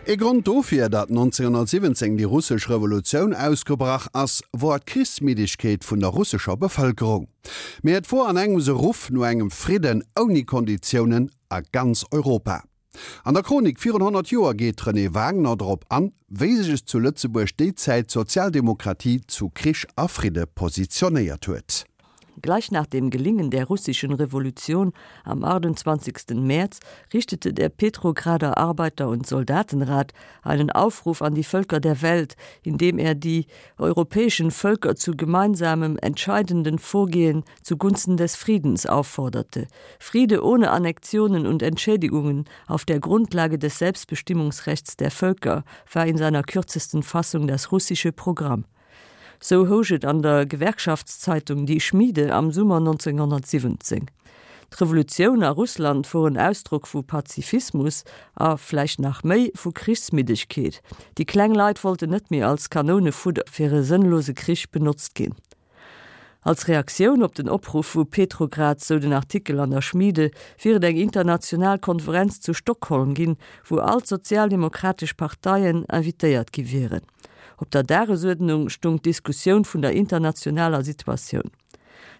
Ee Grond dofir, datt 1917 déi russesch Revolutioun ausgebrach ass, wor d'Krichsmiddegkeet vun der russescher Bevëlkerung. Mee et wor an engems e Ruff no engem Fridden ouni Konditiounen a ganz Europa. An der Chronik virun 100 Joer geet d'Renée Wagner drop an, wéi sech zu Lëtzebuerg déi Zäit d'Sozialdemokratie zu Krich a Fridde positionéiert huet. Gleich nach dem Gelingen der russischen Revolution am 28. März richtete der Petrograder Arbeiter- und Soldatenrat einen Aufruf an die Völker der Welt, indem er die europäischen Völker zu gemeinsamem entscheidenden Vorgehen zugunsten des Friedens aufforderte. Friede ohne Annexionen und Entschädigungen auf der Grundlage des Selbstbestimmungsrechts der Völker war in seiner kürzesten Fassung das russische Programm. Sou housch et an der Gewerkschaftszeitung Die Schmiede am Summer 1917. D'Revolutioun a Russland wor en Ausdrock vu Pazifismus a, vläicht nach méi, vu Krichsmiddegkeet. Déi kleng Leit wollten net méi als Kanounefudder fir e sënnlose Krich benotzt ginn. Als Reaktioun op den Opruff vu Petrograd, sou den Artikel an der Schmiede, wier et eng international Konferenz zu Stockholm ginn, wou all d'sozialdemokratesch Parteien invitéiert gi wieren. Op der Dagesuerdnung stung d'Diskussioun vun der internationaler Situatioun.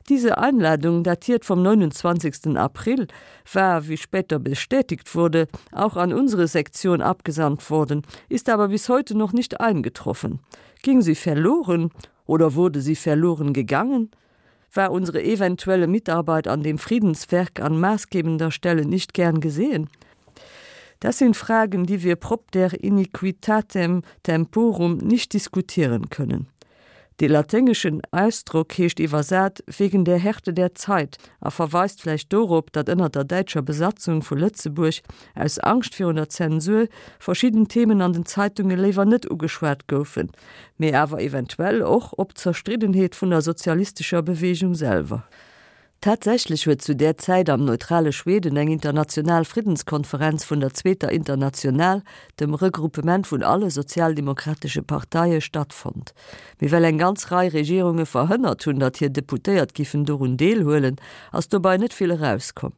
Diese Einladung, datiert vom 29. April, war, wie später bestätigt wurde, auch an unsere Sektion abgesandt worden, ist aber bis heute noch nicht eingetroffen. Ging sie verloren oder wurde sie verloren gegangen? War unsere eventuelle Mitarbeit an dem Friedenswerk an maßgebender Stelle nicht gern gesehen? Das sind Fragen, die wir propter iniquitatem temporum nicht diskutieren können. Dee laténgeschen Ausdrock heescht iwwersat wegen der Härte der Zeit a verweist vläicht dorop, datt ënner der däitscher Besatzung vu Lëtzebuerg aus Angscht virun der Zensur verschidden Themen an den Zeitunge léiwer net ugeschwat goufen, mee awer eventuell och op d'Zerstriddenheet vun der sozialistescher Beweegung selwer. Tatsächlech huet zu där Zäit am neutrale Schweden eng international Friddenskonferenz vun der Zweeter International, dem Regruppement vun alle sozialdemokratesche Parteie, stattfonnt. Mee well eng ganz Rei Regierunge verhënnert hunn, datt hir Deputéiert giffen dorun deelhuelen, ass dobei net vill erauskomm.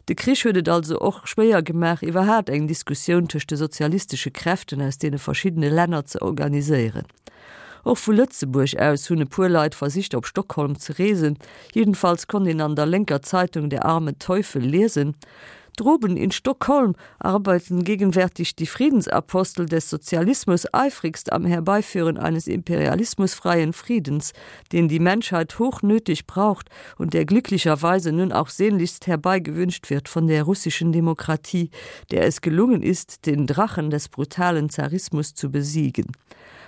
De Krich huet et also och schwéier gemaach, iwwerhaat eng Diskussioun tëscht de sozialistesche Kräften aus deene verschiddene Länner ze organiséieren. Och vu Lëtzebuerg aus hunn e puer Leit versicht op Stockholm ze reesen, jedenfalls konnt een an der lénker Zeitung Der arme Teufel liesen, Droben in Stockholm arbeiten gegenwärtig die Friedensapostel des Sozialismus eifrigst am Herbeiführen eines imperialismusfreien Friedens, den die Menschheit hochnötig braucht und der glücklicherweise nun auch sehnlichst herbeigewünscht wird von der russischen Demokratie, der es gelungen ist, den Drachen des brutalen Zarismus zu besiegen.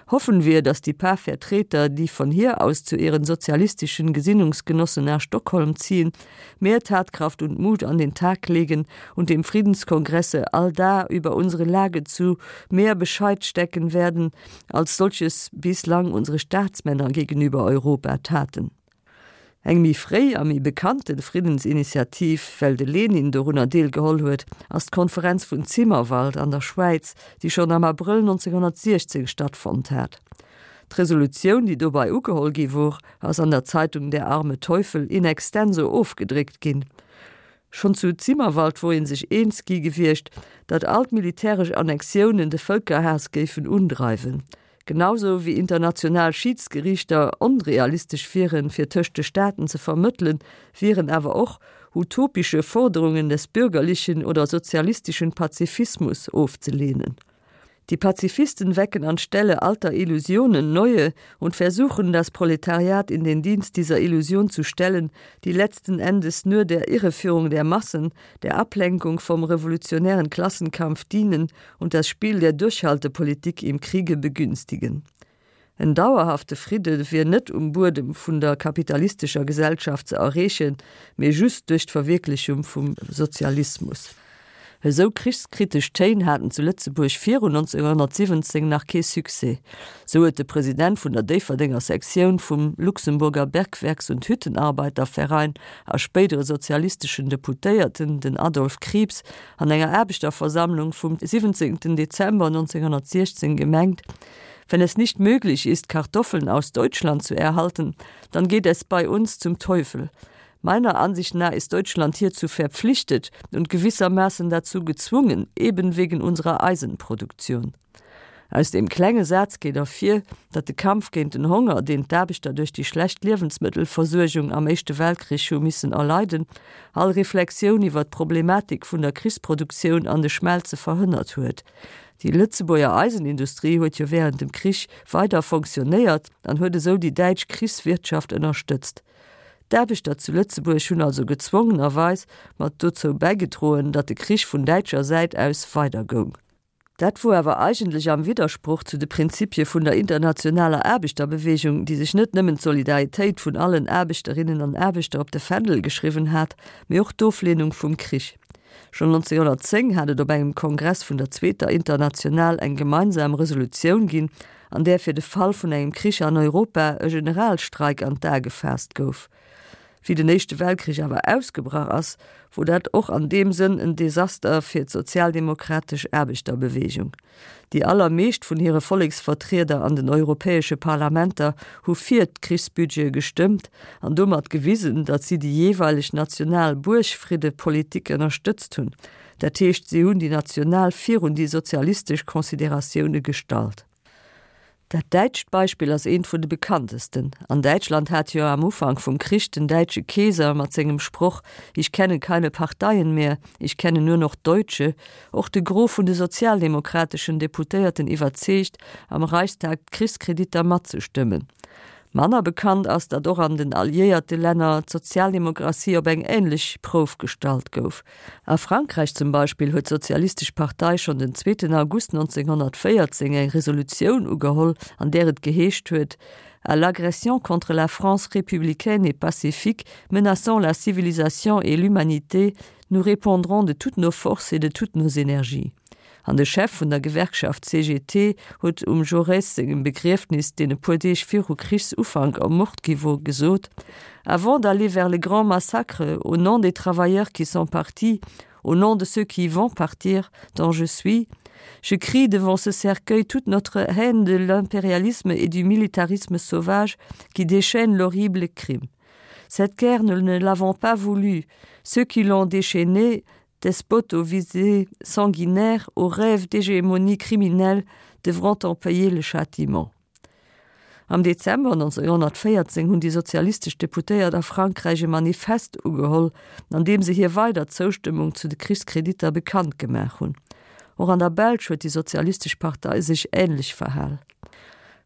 Hoffen wir, dass die paar Vertreter, die von hier aus zu ihren sozialistischen Gesinnungsgenossen nach Stockholm ziehen, mehr Tatkraft und Mut an den Tag legen und dem Friedenskongresse allda über unsere Lage zu mehr Bescheid stecken werden, als solches bislang unsere Staatsmänner gegenüber Europa taten. Eng méi fréi a méi bekannte Friddensinitiativ, well de Lenin dorunner deelgeholl huet, ass d'Konferenz vun Zimmerwald an der Schwäiz, déi schonn am Abrëll 1916 stattfonnt hat. D'Resolutioun, déi dobei ugeholl gi wor, ass an der Zeitung Der arme Teufel in extenso ofgedréckt ginn. Schonn zu Zimmerwald wor ee sech eens gi gewiescht, datt all d'militäresch Annexiounen de Vëlkerhaass géifen undreiwen. Genausou wéi international Schiidsgeriichter onrealistesch wieren, fir tëscht de Staaten ze vermëttelen, wieren awer och utopische Forderungen des bürgerlichen oder sozialistischen Pazifismus ofzelehnen. Die Pazifisten wecken anstelle alter Illusionen neue und versuchen, das Proletariat in den Dienst dieser Illusion zu stellen, die letzten Endes nur der Irreführung der Massen, der Ablenkung vom revolutionären Klassenkampf dienen und das Spiel der Durchhaltepolitik im Kriege begünstigen. En dauerhafte Fridde wier net um Buedem vun der kapitalistescher Gesellschaft ze erreechen, mee just duerch d'Verwierklechung vum Sozialismus. Esou krichskritesch Téin haten zu Lëtzebuerg virun 1917 nach kee Succès. Sou huet de President vun der Déifferdenger Sektioun vum Luxemburger Bergwerks und Hüttenarbeiterverein a spéidere sozialisteschen Deputéierten, den Adolphe Krieps, an enger Aarbechterversammlung vum 17. Dezember 1916 gemengt, Wenn es nicht möglich ist, Kartoffeln aus Deutschland zu erhalten, dann geht es bei uns zum Teufel. Meiner Ansicht nach ist Deutschland hierzu verpflichtet und gewissermaßen dazu gezwungen, eben wegen unserer Eisenproduktion. Aus deem klenge Saz geet ervir, datt de Kampf géint den Honger, deen d'Aarbechter duerch déi schlecht Liewensmëttelversuergung am Éischte Weltkrich hu missen erleiden, all Reflexioun iwwer d'Problematik vun der Krichsproduktioun an de Schmelze verhënnert huet. Déi Lëtzebuerger Eisenindustrie huet jo wärend dem Krich weider fonctionnéiert an huet esou déi däitsch Krichswirtschaft ënnerstëtzt. D'Aarbechter zu Lëtzebuerg hunn also gezwongenerweis mat dozou bäigedroen, datt de Krich vun däitscher Säit aus weidergoung. Dat wor awer eigentlech am Widdersproch zu de Prinzipie vun der internationaler Aarbechterbewegung, déi sech net nëmmen d'Solidaritéit vun allen Aarbechterinnen an Aarbechter op de Fändel geschriwwen hat, mee och d'Oflehnung vum Krich. Schonn 1910 hat et op engem Kongress vun der Zweeter International eng gemeinsam Resolutioun ginn, an där fir de Fall vun engem Krich an Europa e Generalstreik an d'A gefaasst gouf. Wéi den Éischte Weltkrich awer ausgebrach ass, wor dat och an deem Sënn en Desaster fir d'sozialdemokratesch Aarbechterbewegung. Déi allermeescht vun hire Volleksvertrieder an den europäesche Parlamenter hu fir d'Krichsbudgete gestëmmt an domat gewisen, datt si déi jeeweileg national Buergfriddepolitik ënnerstëtzt hunn. Dat heescht, si hunn déi national virun déi sozialistesch Consideratioune gestallt. Dat däitscht Beispill ass eent vun de bekanntesten. An Däitschland hat jo am Ufank vum Krich den däitsche Keeser mat sengem Sproch Ich kenne keine Parteien mehr, ich kenne nur noch Deutsche och de Gros vun de sozialdemokrateschen Deputéierten iwwerzeegt, am Reichstag d'Krichskreditter matzestëmmen. Manner bekannt ass, datt och an den alliéierte Länner d'Sozialdemokratie op eng änlech Prouf gestallt gouf. A Frankräich zum Beispill huet d'Sozialistesch Partei schonn den zweeten August 1914 eng Resolutioun ugeholl, an där et geheescht huet, À l'agression contre la France républicaine et pacifique, menaçant la civilisation et l'humanité, nous répondrons de toutes nos forces et de toutes nos énergies. An de Chef vun der Gewerkschaft CGT huet um Jaurès sengem Begriefnis, deen e puer Deeg viru Krichsufank ermort gi wor, gesot, Avant d'aller vers le grand massacre, au nom des travailleurs qui sont partis, au nom de ceux qui vont partir, dont je suis, je crie devant ce cercueil toute notre haine de l'impérialisme et du militarisme sauvage qui déchaîne l'horrible crime. Cette guerre, nous ne l'avons pas voulue. Ceux qui l'ont déchaînée despotes aux visées sanguinaires, aux rêves d'hégémonie criminelle devront en payer le châtiment. Am Dezember 1914 hunn déi sozialistesch Deputéiert a Frankräich e Manifest ugeholl, an deem se hir weider Zoustëmmung zu de Krichskreditter bekannt gemaach hunn. Och an der Belsch huet déi sozialistesch Partei sech änlech verhal.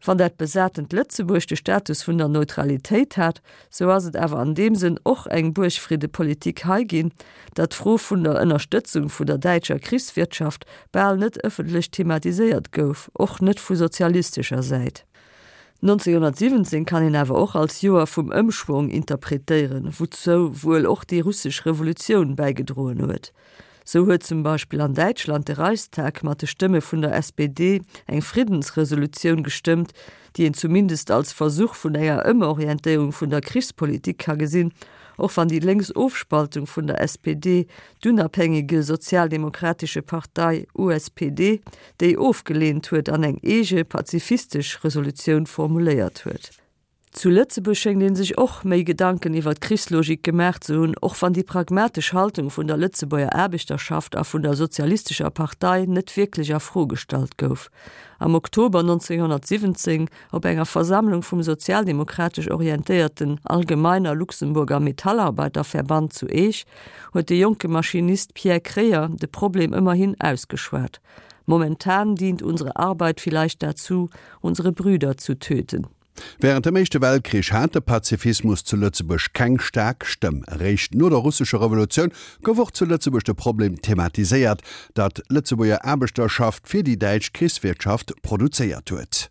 Wann dat besatent Lëtzebuerg de Status vun der Neutralitéit hat, sou ass et awer an deem Sënn och eng Buergfriddepolitik hei ginn, datt d'Fro vun der Ënnerstëtzung vun der däitscher Krichswirtschaft bal net ëffentlech thematiséiert gouf, och net vu sozialistescher Säit. 1917 kann een awer och als Joer vum Ëmschwong interpretéieren, wouzou wuel och déi russesch Revolutioun bäigedroen huet. Sou huet zum Beispill an Däitschland de Reichstag mat de Stëmme vun der SPD eng Friddensresolutioun gestëmmt, déi een zumindest als Versuch vun enger Ëmorientéierung vun der Krichspolitik ka gesinn, och wann déi lénks Ofspaltung vun der SPD, d'Unabhängige Sozialdemokratische Partei, USPD, déi ofgeleent huet an eng eege pazifistesch Resolutioun formuléiert huet. Zu Lëtzebuerg schéngt ee sech och méi Gedanken iwwer d'Krichslogik gemaach ze hunn, och wann déi pragmatesch Haltung vun der Lëtzebuerger Aarbechterschaft a vun der Sozialistescher Partei net wierklech a Fro gestallt gouf. Am Oktober 1917, op enger Versammlung vum sozialdemokratesch orientéierten Allgemeiner Luxemburger Metallarbeiterverband zu Eech, huet de jonke Maschinist Pierre Kreyer de Problem ëmmerhin ausgeschwat, Momentan dient unsere Arbeit vielleicht dazu, unsere Brüder zu töten. Wärend dem Éischte Weltkrich hat de Pazifismus zu Lëtzebuerg keng staark Stëmm. Eréischt no der russescher Revolutioun gouf och zu Lëtzebuerg de Problem thematiséiert, datt d'Lëtzebuerger Aarbechterschaft fir déi däitsch Krichswirtschaft produzéiert huet.